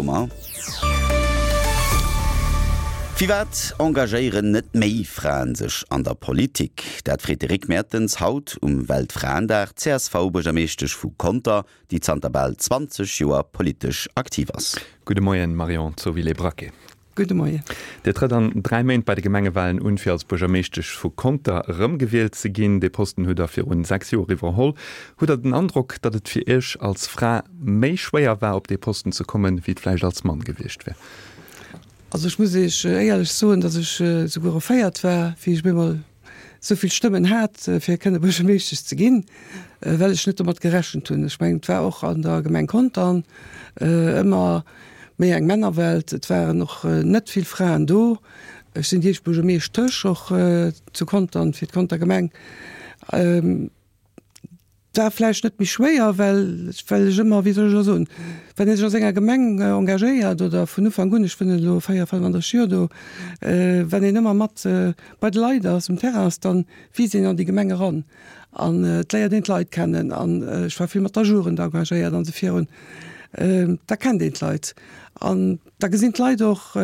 Baumer. Firwat engagéieren net méi Fraen sech an der Politik? Dat freet de Rick Mertens haut um Weltfraendag d'CSV-Buergermeeschtesch vu Conter, déi zanter bal 20 Joer politesch aktiv ass. Gudde Moien, Marion Zovilé-Braquet. Gudde Moien. Dir trëtt an 3 Méint bei de Gemengewalen un, fir als Buergermeeschtesch vu Conter erëmgewielt ze ginn. Dee Posten hutt Der virun 6 Joer iwwerholl. Hutt Der den Androck, datt et fir Iech als Fra méi schwéier war, op dee Posten ze kommen, wéi et vläicht als Mann gewiescht wär? Also ech muss Iech éierlech soen, datt ech souguer erféiert war, wéi ech op eemol esou vill Stëmmen hat, fir kënne Buergermeeschtesch ze ginn, well ech net domat gerechent hunn. Ech mengen, et war och an der Gemeng Contern ëmmer méi eng Männerwelt. Et waren och net vill Fraen do. Ech sinn déi éischt Buergermeeschtesch och zu Contern, fir d'Conter Gemeng. Et war vläicht net méi schwéier, well well ech ëmmer, wéi soll ech elo soen, wann ee sech a senger Gemeng engagéiert oder vun Ufank un, ech wunnen elo 4, 35 Joer do, wann een ëmmer mat bei de Leit ass, um Terrain ass, dann wiisst een an déi Gemeng eran an et léiert een d'Leit kennen an ech war vill mat der Jugend engagéiert an esou virun, da kennt een d'Leit an da gesinn d'Leit och,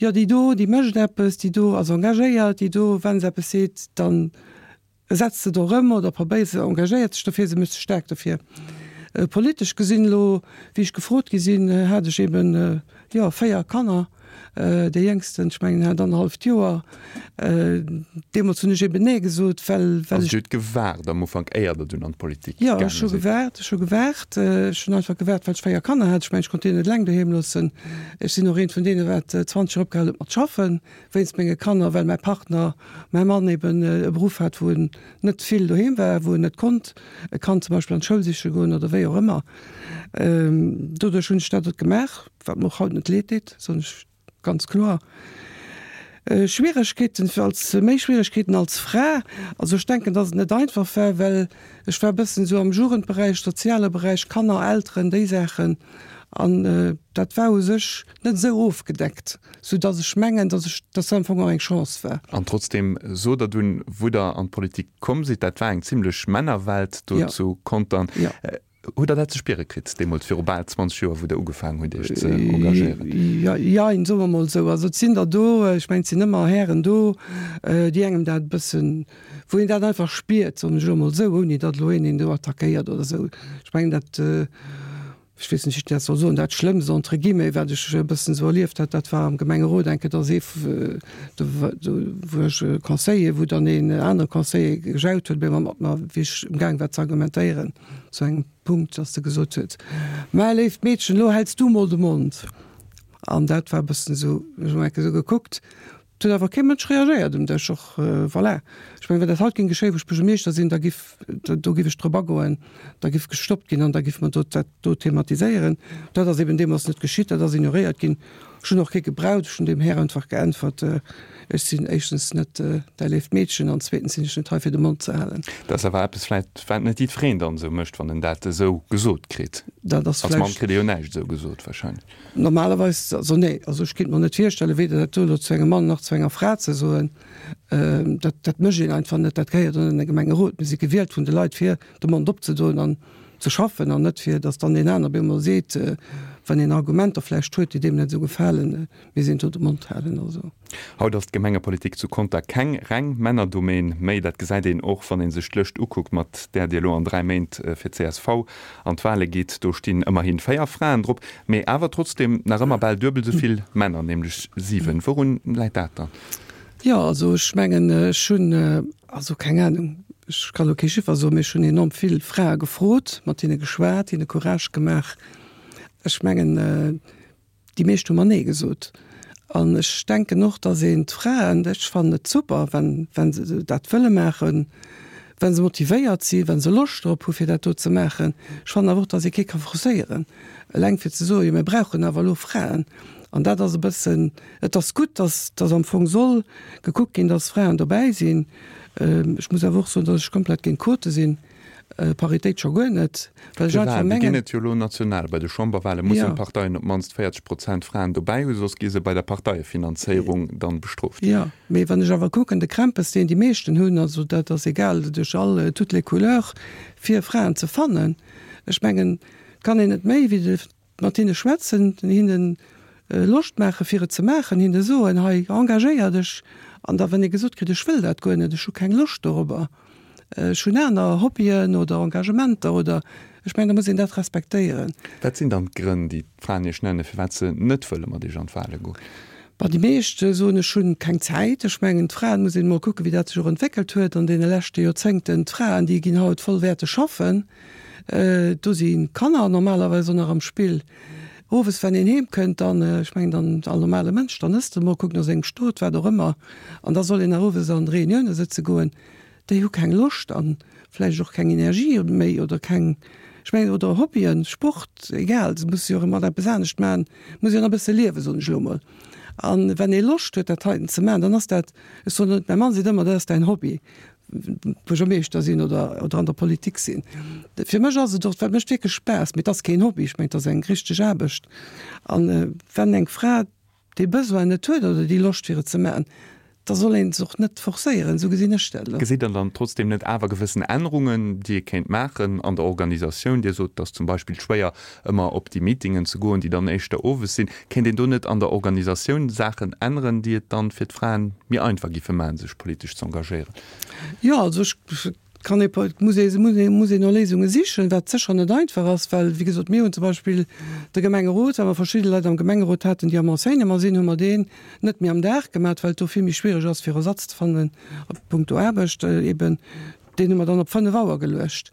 jo déi do, déi mécht eppes, déi do ass engagéiert, déi do, wa se eppes seet, dann Setzt se do erëm oder probéiert se, engagéiert sech dofir, se mécht sech staark dofir. Politesch gesinn elo, wéi ech gefrot gi sinn, hat ech eben, jo, 4 Kanner, dee jéngsten, ech mengen, hat annerhalleft Joer. Deemools hunn ech eben Nee gesot, well, well ech. Also Dir hutt gewaart am Ufank, éier Der dunn an d'Politik gaange sidd? Jo, ech hu gewaart, ech hu gewaart. Ech hunn einfach gewaart, well ech 4 Kanner hat. Ech mengen, ech konnt déi net eleng doheem loossen. Ech sinn och eent vun deene wat 20 Joer opgehal huet mat schaffen. Wéinst menge Kanner, well mäi Partner, mäi Mann eben e Beruff hat, wou en net vill doheem war, wou en net konnt e Kand zum Beispill an d'Schoul siche goen oder wéi och ëmmer. Doduerch hunn ech dat et gemaach, wat mer och haut net leed deet, soen ech ganz kloer. Schwieregkeeten als, méi Schwieregkeeten als Fra, also ech denken, dass et net einfach war, well ech war e bëssen esou am Jugendberäich, soziale Beräich, Kanner, Elteren, déi Saachen an dat war u sech net esou ofgedeckt, sou dass ech mengen, dass ech, dass dat am Fong och eng Chance war. An trotzdem sot Der dunn, wou Der an d'Politik komm sidd, dat war eng zimlech Männerwelt do zu Contern. Hutt Der dat ze spiere kritt deemools, viru bal 20 Joer, wou Der ugefaangen hutt, Iech ze engagéieren? Jein, soe mer mol esou. Also et sinn der do, ech mengen, et sinn ëmmer Hären do, déi engem dat e bëssen, wou een dat einfach spiert, soen ech elo mol esou, ouni datt elo een een do attackéiert oder esou. Ech mengen dat, ech weess net, wéi ech dat soll soen, dat Schlëmmst entre guillemets, wat ech e bëssen esou erlieft hat, dat war am Gemengerot eng Kéier, dass ee, do do wor ech Conseiller, wou dann een anere Conseiller gejaut huet, op eemol mat mer, wéi ech emgaang war ze argumentéieren zu engem Punkt, dass e gesot huet, Mä léift Meedchen, elo häls du mol de Mond. An dat war e bëssen esou, ech hunn eng Kéier esou gekuckt, Et huet awer kee Mënsch reagéiert um Dësch. Och voilà. Ech mengen, wann dat haut géing geschéien, wou ech Buergermeeschter sinn, da giff, do giff ech drop agoen, da giff gestoppt ginn an da giffe mer do dat do thematiséieren. Dat ass eben deemools net geschitt, dat ass ignoréiert ginn. Ech hunn och kee gebraucht, ech hunn deem Här einfach geäntwert, Ech sinn éischtens net däi léift Meedchen an zweetens sinn ech net hei fir de Mond ze halen. Dat ass awer eppes vläicht, wat net jiddwereen dann esou mécht, wann en dat esou gesot kritt. Dat ass Als Mann kritt ee jo näischt esou gesot wahrscheinlech. Normalerweis, also nee, also ech kéint mer net virstellen, weder dat do elo zu engem Mann nach zu enger Fra ze soen. Dat, dat mécht een einfach net, dat gehéiert an e Gemengerot. Mir si gewielt vun de Leit, fir de Mond opzedoen an ze schaffen an net fir, datt dann deen aner op eemol seet, wann een Argumenter vläicht huet, déi deem net esou gefalen, mir sinn do de Mond halen. Also. Haut ass d'Gemengepolitik zu Conter keng reng Männerdomaine méi. Dat gesäit een och, wann ee sech d'Lëscht ukuckt, mat där Dir elo an 3 Méint fir csv an d'Wale gitt. Do stinn ëmmerhi 4 Fraen drop, mee awer trotzdeem nach ëmmer bal duebel esou vill Männer, nämlech 7. Wourun läit dat dann? Jo, also ech mengen, ech hunn, also keng Anung, ech ka lo kee Chiffer soen, mee ech hunn enorm vill Frae gefrot, mat hinne geschwat, hinne Courage gemaach. Ech mengen, Déi meescht hu mer Nee gesot. An ech denken och, datt een d'Fraen, ech fannen et super, wann, wa se dat wëlle maachen, wa se motivéiert sinn, wa se Loscht drop hu fir dat do ze maachen. Ech fannen awer och, datt ee kee ka forcéieren, eleng fir ze soen, jo mir brauchen awer elo Fraen. An dat ass e bëssen, et ass gutt, datt, datt am Fong soll gekuckt ginn, datt Fraen dobäi sinn. Ech muss awer och soen, datt ech komplett géint Quote sinn. Paritéit scho guer net, well ech einfach mengen. Déi ginn et jo elo national. Bei de Chamberwale mussen d'Parteien op d'mannst 40 Prozent Fraen dobäi hu, soss gi se bei der Parteiefinanzéierung dann bestrooft. Jo, mee wann ech awer kucken, de Krämpes, deen déi meeschten hunn, also dat ass egal duerch all, toutes les couleurs, fir Fraen ze fannen, ech mengen, et kann een net méi wéi de. mat hinne schwätzen, hinnen Loscht maache fir et ze maachen, hinne soen, hei engagéier dech, an da wann ee gesot kritt, ech wëll dat guer net, ech hu keng Loscht dorobber, ech hunn aner Hobbyen oder Engagementer oder, ech mengen da muss een dat respektéieren. Wat sinn dann d'Grënn, déi d'Fraen Iech nennen, firwat se net wëlle mat Iech an d'Wale goen? Bon, déi meescht soen, ech hunn keng Zäit. Ech mengen, d'Fraen, muss een emol kucken, wéi dat sech och entwéckelt huet an deene leschte Joerzéngten, d'Fraen, déi ginn haut vollwäerteg schaffen, do si Kanner normalerweis och nach am Spill. Owes wann een heem kënnt, dann, ech mengen dann all normale Mënsch, dann ësst e mol, kuckt no sengem Stot, wat och ëmmer, an da soll een nach owes an Reunioune sëtze goen. Déi hu keng Loscht an vläicht och keng Energie méi oder keng, ech mengen, oder Hobbyen, Sport, egal, se musse jo och ëmmer eppes anescht maachen, muss jo nach e bësse liewen, soen ech elo mol. An wenn ee Loscht huet dat heiten ze maachen, dann ass dat, ech soen net, mäi Mann seet ëmmer, dat ass däin Hobby. Buergermeeschter sinn oder, oder an der Politik sinn. Fir mech ass et och, dat mécht wierklech Spaass, mee et ass keen Hobby, ech mengen, et ass eng richteg Aarbecht. An wenn eng Fra dee Besoin net huet oder déi Loscht fir et ze maachen, da soll een se och net forcéieren, esou gesinn ech dat elo. Gesitt Der dann trotzdem net awer gewëssen Ännerungen, déi ee kéint maachen an der Organisatioun? Dir sot, et ass zum Beispill schwéier ëmmer op déi Meetingen ze goen, déi dann éischter owes sinn. Kéint een do net an der Organisatioun Saachen änneren, déi et dann fir d'Fraen méi einfach giffe maachen, sech politesch ze engagéieren? Jo, also ech kann ee, muss ee, muss ee, muss een no Léisunge sichen, wat sécher net einfach ass, well, wéi gesot, mir hunn zum Beispill de Gemengerot, well mer verschidde Leit am Gemengerot haten, déi am Enseignement sinn, hu mer deen net méi am Dag gemaat, well et do vill méi schwiereg ass, fir Ersatz ze fannen a puncto Aarbecht eben. Deen hu mer dann op 5 Auer geluecht.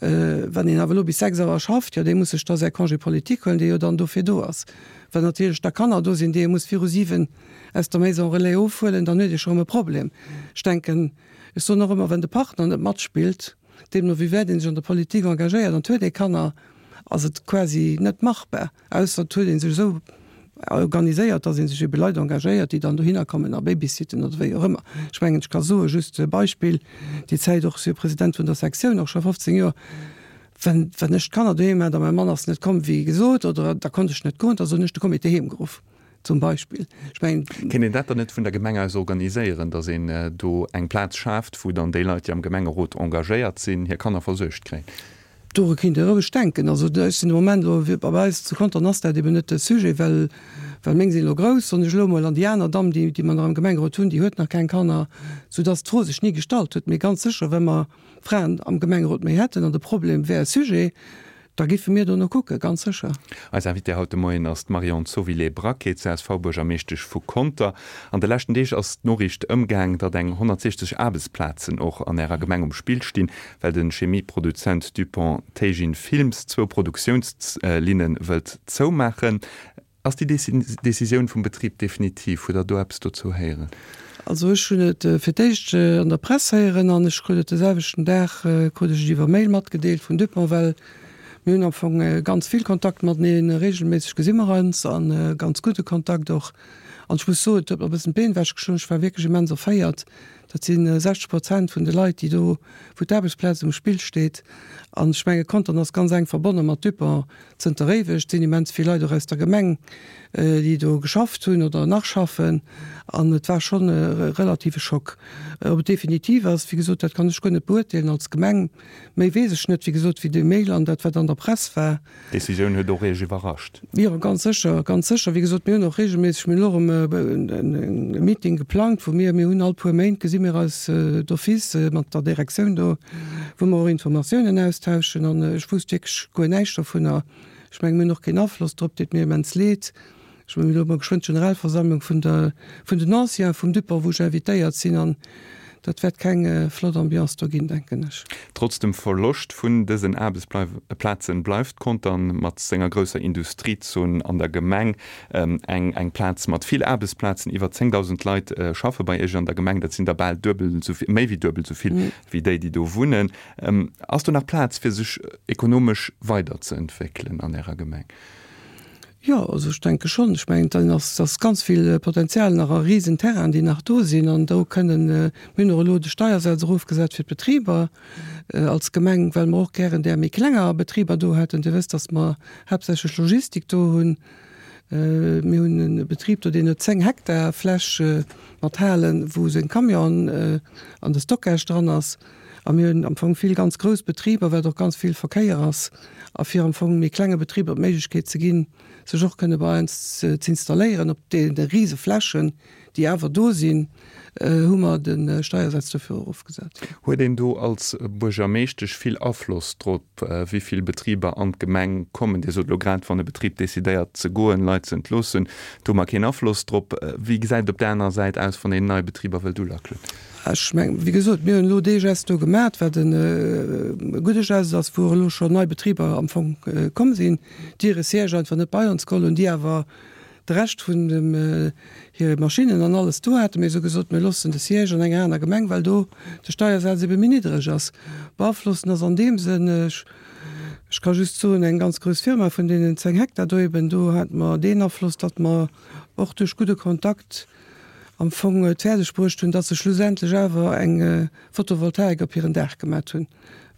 Wann een awer elo bis 6 Auer schafft, jo, dee muss sech da säi Congé politique huelen, dee jo dann dofir do ass. Well natierlech da Kanner do sinn, déi ee muss viru 7 aus der Maison relais ofhuelen, dann huet ee scho rëm e Problem. Ech denken, ech soen och ëmmer, wenn de Partner net matspillt, deemno wéi wäit ee sech an der Politik engagéiert an et huet ee Kanner, ass et quasi net machbar. Ausser et huet ee sech esou organiséiert, datt ee sech ebe Leit engagéiert, déi dann dohinner kommen a babysitten oder wéi och ëmmer. Ech mengen, ech ka soen, just e Beispill, déi Zäit och, ech si jo President vun der Sektioun och scho 15 Joer, wenn, wenn ech d'Kanner doheem hat a mäi Mann ass net komm wéi gesot oder da konnt ech net goen, da hunn ech de Comité heem geruff zum Beispill. Ech mengen. Kéint een dat dann net vun der Gemeng aus organiséieren, datt een do eng Plaz schaaft, wou dann déi Leit, déi am Gemengerot engagéiert sinn, hir Kanner versuergt kréien? Doru kéint ee roueg denken. Also ech sinn de Moment elo, bei eis zu Contern ass dat eben net de Sujet, well, well meng sinn elo grouss, soen ech elo emol, an déi aner Damm, déi, déi mer nach am Gemengerot hunn, déi huet nach keng Kanner, soudass d'Fro sech ni gestallt huet. Mee ganz sécher, wa mer Fraen am Gemengerot méi hätten an de Problem wär e Sujet, da géife mir dono kucken, ganz sécher. Eis Invitée haut de Moien ass d'Marion Zovilé-Braquet, CSV-Buergermeeschtesch vu Conter. An de leschten Deeg ass d'Noriicht ëmgaang, datt eng 160 Aarbechtsplazen och an Ärer Gemeng um Spill stinn, well de Chemieproduzent Dupont Teijin Films zwou Produktiounslinne wëllt zoumaachen. Ass déi Decisioun vum Betrib definitiv? Hutt Der do eppes dozou héieren? Also ech hunn et fir d'éischt an der Press héieren an ech krut et de selwechten Dag krut ech et iwwer Mail matgedeelt vun Dupont, well mir hunn am Fong ganz vill Kontakt mateneen, regelméisseg gesi mer eis a ganz gudde Kontakt och. An ech muss soen, et huet mer e bëssen d'Been ewechgeschloen, ech war wierklech immens erféiert. Dat si 60 Prozent vun de Leit, déi do, wou d'Aarbechtsplaz um Spill steet. An ech menge Contern ass ganz enk verbonne mat Dupont zënter éiweg. Et sinn immens vill Leit och aus der Gemeng, déi do geschafft hunn oder nach schaffen. An et war schonn e relative Schock. Ob et definitiv ass, wéi gesot, dat kann ech guer net beurteelen als Gemeng. Méi weess ech net, wéi gesot, wéi dee Mail an dat, wat an der Press war. D'Decisioun huet och Iech iwwerrascht? Jo, ganz sécher, ganz sécher. Wéi gesot, mir hunn och reegelméisseg, mir hunn elo erëm e Meeting geplangt, wou mir, mir hunn all puer Méint gesi mir eis d'office mat der Direktioun do, wou mer och Informatiounen austauschen. An ech wousst wierklech guer näischt dovunner. Ech mengen, mir hunn och keen Afloss drop, deet mir immens leed. Ech hunn elo mol geschwënn d'Generalversammlung vun der, vun den Anciens vum Dupont, wou ech invitéiert sinn, an dat wäert keng flott Ambiance do ginn, denken ech. Trotz dem Verloscht vun dësen Aarbechtsplazen bleift Contern mat senger grousser Industriezon an der Gemeng eng eng Plaz mat vill Aarbechtsplazen. Iwwer 10.000 Leit schaffe bei Iech an der Gemeng, dat sinn der bal duebel esou vill, méi wéi duebel esou vill wéi déi, déi do wunnen. Ass do nach Plaz fir sech ekonomesch weiderzeentwéckelen an Ärer Gemeng? Jo, also ech denke schonn. Ech mengen, dann ass ass ganz vill Potenzial nach a risen Terrainen, déi nach do sinn. An do kënnen, mir hunn och elo de Steiersaz erofgesat fir d'Betriber als Gemeng, well mer och gären där méi klenger Betriber do hätten. Dir wësst, datt mer haaptsächlech Logistik do hunn. Mir hunn e Betrib do, deen huet 10 Hektar Fläch mat Halen, wou seng Camionen an de Stockage dran ass. A mir hunn am Fong vill ganz grouss Betriber, wat och ganz vill Verkéier ass. A fir am Fong méi klenge Betriber d'Méiglechkeet ze ginn, sech och kënne bei eis z'installéieren op deene rise Flächen, déi awer do sinn, hu mer de Steiersaz dofir erofgesat. Huet een do als Buergermeeschtesch vill Afloss drop, wéi vill Betriber an d'Gemeng kommen? Dir sot elo grad, wann e Betrib decidéiert ze goen, Leit ze entloossen, do hu mer keen Afloss drop. Wéi gesäit et op där anerer Säit aus, wann een nei Betriber wëllt ulackelen? Ech mengen, wéi gesot, mir hunn elo dee Geste do gemaach, wat e gudde Geste ass, wou och elo schonn nei Betriber am Fong komm sinn, déi hire Siège einfach net bei ons geholl hunn, déi awer de Rescht vun dem hire Maschinnen an alles do haten. Mir hu gesot, mir loossen de Siège an enger aner Gemeng, well do de Steiersaz ebe méi niddreg ass. Beaflossen ass an deem Sënn, ech ech ka just soen, eng ganz grouss Firma vun deenen 10 Hektar do eben, do hate mer deen Afloss, datt mer och duerch gudde Kontakt am Fong et fäerdeg bruecht hunn, datt se schlussendlech awer eng Photovoltaik op hiren Daach gemat hunn,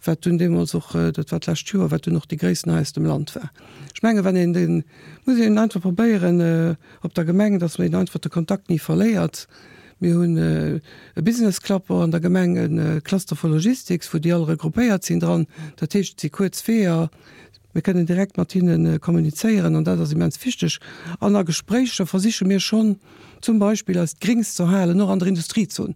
wat dunn deemools och, dat war d'lescht Joer, wat dunn och déi gréissten hei aus dem Land war. Ech menge wann een den, muss een einfach probéieren op der Gemeng, datt een einfach de Kontakt ni verléiert. Mir hunn e Business Club och an der Gemeng, e Cluster for Logistics, wou déi all regroupéiert sinn dran. Dat heescht, et si kuerz Weeër, mir kënnen direkt mat hinne kommunizéieren an dat ass immens wichteg. An a Gespréicher versiche mir schonn zum Beispill eist Grings ze erhalen, och an der Industriezon.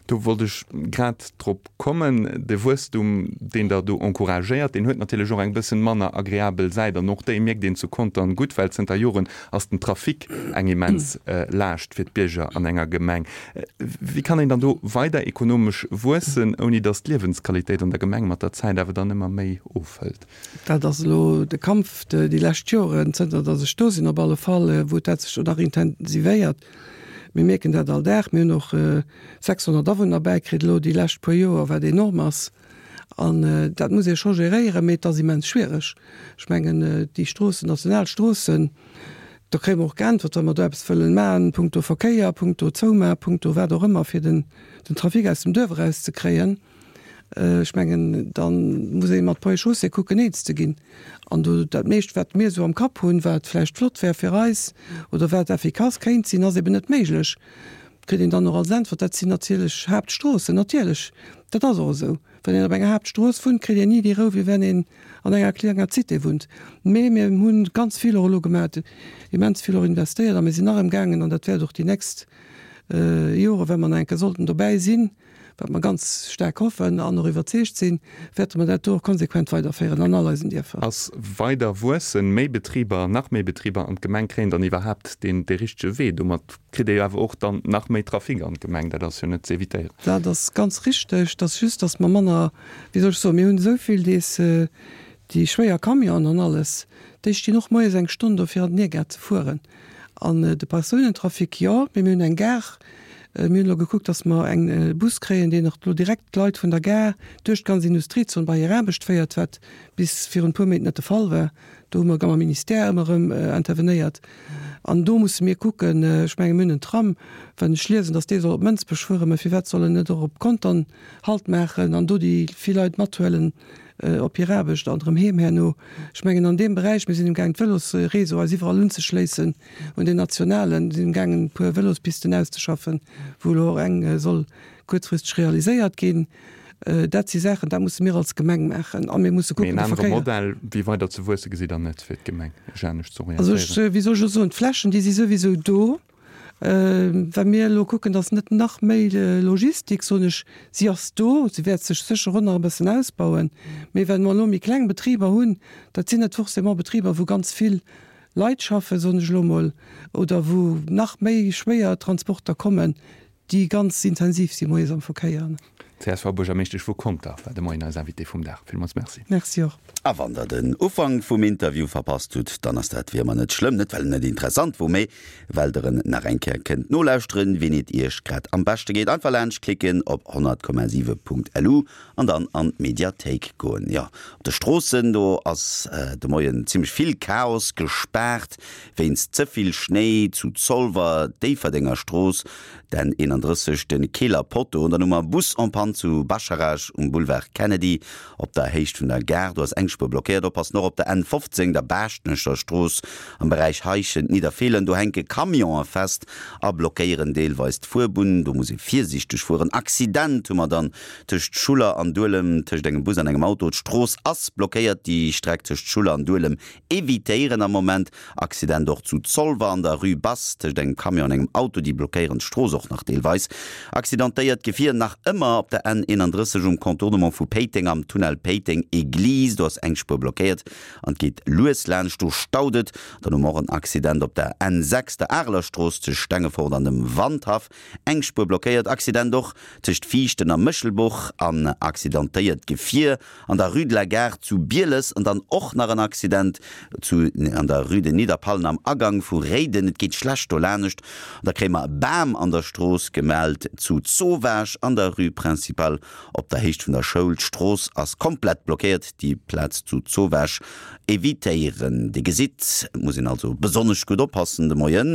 Do wollt ech grad drop kommen. De Wuesstum, deen Der do encouragéiert, deen huet natierlech och eng bëssen manner agreabel Säit. An och déi mierkt een zu Contern gutt, well zënter Joren ass den Trafic eng immens Laascht fir d'Bierger an enger Gemeng. Wéi kann een dann do weider ekonomesch wuessen, ouni datt d'Liewensqualitéit an der Gemeng mat der Zäit awer dann ëmmer méi ofhëlt? Dat ass elo de Kampf déi lescht Joren, zënter datt ech do sinn op alle Fall, wou dat sech do nach intensivéiert. Mir mierken dat all Dag. Mir hunn och 600 Awunner bäikritt elo déi lescht puer Joer, wat enorm ass. An dat muss ee scho geréieren, mee et ass immens schwiereg. Ech mengen, déi Stroossen, national Stroossen, do kréie mer och geäntwert, wa mer do eppes wëllen maachen, punkto Verkéier, punkto Zoumaach, punkto wat och ëmmer, fir den Trafic aus dem Duerf erauszekréien. Ech mengen, da muss ee mat Ponts et Chaussées kucken, eens ze ginn. An do, dat meescht, wat mir esou am Kapp hunn, wat vläicht flott wär fir eis oder wat effikass kéint sinn, ass eben net méiglech. Kritt een dann och als Äntwert, dat sinn natierlech Haaptstroossen. Natierlech, dat ass och esou. Wann een op enger Haaptstrooss wunnt, kritt een ni déi Rou, wéi wenn een an enger klenger Cité wunnt. Mee mir hu ganz vill och elo gemaach, immens vill och investéiert a mir sinn nach emgaangen, an dat wäert och déi nächst Jore, wa mer nach eng Kéier sollten dobäi sinn, wat mer ganz staark hoffen an och iwwerzeegt sinn, wäerte mer dat do och konsequent weiderféieren an all eisen Dierfer. Ass weider wuessen, méi Betriber, nach méi Betriber an d'Gemeng kréien dann iwwerhaapt deen dee richtege Wee? Domat kritt ee jo awer och dann nach méi Trafic an d'Gemeng, dat ass jo net z'evitéieren. Dat ass ganz richteg. Et ass just, datt mer manner, wéi soll ech soen, mir hunn esou vill dees déi schwéier Camionen an alles, déi stinn och moies eng Stonn do fir an den Niergaart ze fueren. An de Persounentrafic, jo, mee mir hunn eng Gare. Mir hunn elo gekuckt, datt mer eng Bus kréien, deen och elo direkt d'Leit vun der Gare duerch d'ganz Industriezon bei hir Aarbecht féiert, wat bis virun e puer Méint net de Fall war. Do hu mer mam Ministère ëmmer erëm intervenéiert. An do musse mir kucken, ech menge mir hunn en Tram, wann ech liesen, datt dee soll op Mënsbech fueren, mä firwat soll en net och op Contern Halt maachen an do déi vill Leit mathuelen op hir Aarbecht an erëm heem herno. Ech mengen an deem Beräich, mir sinn emgaangen d'Vëlosréseau eis iwwerall unzeschléissen un deen nationalen, sinn emgaangen e puer Vëlospisten auszeschaffen, wou elo och eng soll kuerzfristeg realiséiert ginn. Dat si Saachen, dat musse mir als Gemeng maachen a mir musse kucken de Verkéier. Mee en anere Modell wéi weider ze wuesse gesitt Der net fir d'Gemeng, sech anescht ze orientéieren? Also ech, wéi soll ech elo soen, d'Flächen déi si souwisou do. Wa mir elo kucken, dass net nach méi Logistik, soen ech, si ass do, si wäert sech sécher och nach e bëssen ausbauen, mee well mer elo méi kleng Betriber hunn, dat sinn net forcément Betriber, wou ganz vill Leit schaffen, soen ech elo emol, oder wou nach méi schwéier Transporter kommen, déi ganz intensiv si moies am Verkéier. D'CSV-Buergermeeschtesch vu Conter war de Moien eis Invitée vum Dag. Villmools Merci. Merci och. A wann der den Ufank vum Interview verpasst hutt, dann ass dat wéi ëmmer net schlëmm. Net well en net interessant wor, mee well der en nach eng Kéier kënnt nolauschteren, wien et iech grad am beschte geet. Einfach laanscht klicken op 100,7.lu an dann an d'Mediathéik goen. Jo, op de Stroossen do ass de Moien zimmlech vill Chaos, gespaart wéinst ze vill Schnéi zu Zolwer, Déifferdenger Strooss, den 31, de Keeler Potto, an dann hu mer Bus en panne. an zu Bascharage um Boulevard Kennedy op der Héicht vun der Gare. Do ass eng Spuer blockéiert. Oppassen och op der N 15, der Baaschtnecher Strooss am Beräich Heischent-Nidderfeelen. Do hänke Camionë fest a blockéieren deelweis d'Fuerbunn. Do muss ee virsiichteg fueren. Accident hu mer dann tëscht Schuller an Duelem, tëscht engem Bus an engem Auto. D'Strooss ass blockéiert. Déi Streck tëscht Schuller an Duelem Evitéieren am Moment. Accident och zu Zolwer an der Rue Basse tëscht engem Camion an engem Auto, déi blockéieren d'Strooss och nach deelweis. Accidentéiert Gefier nach ëmmer op der N 31 um Contournement vu Péiteng am Tunnel Péiteng Eglise, do ass eng Spuer blockéiert an et geet lues laanscht, do staut et. Dann hu mer och en Accident op der N 6, der Arelerstrooss tëscht Stengefort an dem Wandhaff, eng Spuer blockéiert. Accident och tëscht Viichten a Méchelbuch an accidentéiert Gefier An der Rue de la Gare zu Bieles an dann och nach en Accident zu an der Rue de Nidderpallen am Agang vu Réiden. Et geet schlecht dolanescht. An da kréie mer e Bam an der Strooss gemellt zu Zowaasch an der Rue Principale op der Héicht vun der Schoul. D'Strooss ass komplett blockéiert. Déi Plaz zu Zowaasch evitéieren. Dir gesitt, et muss een also besonnesch gutt oppassen de Moien.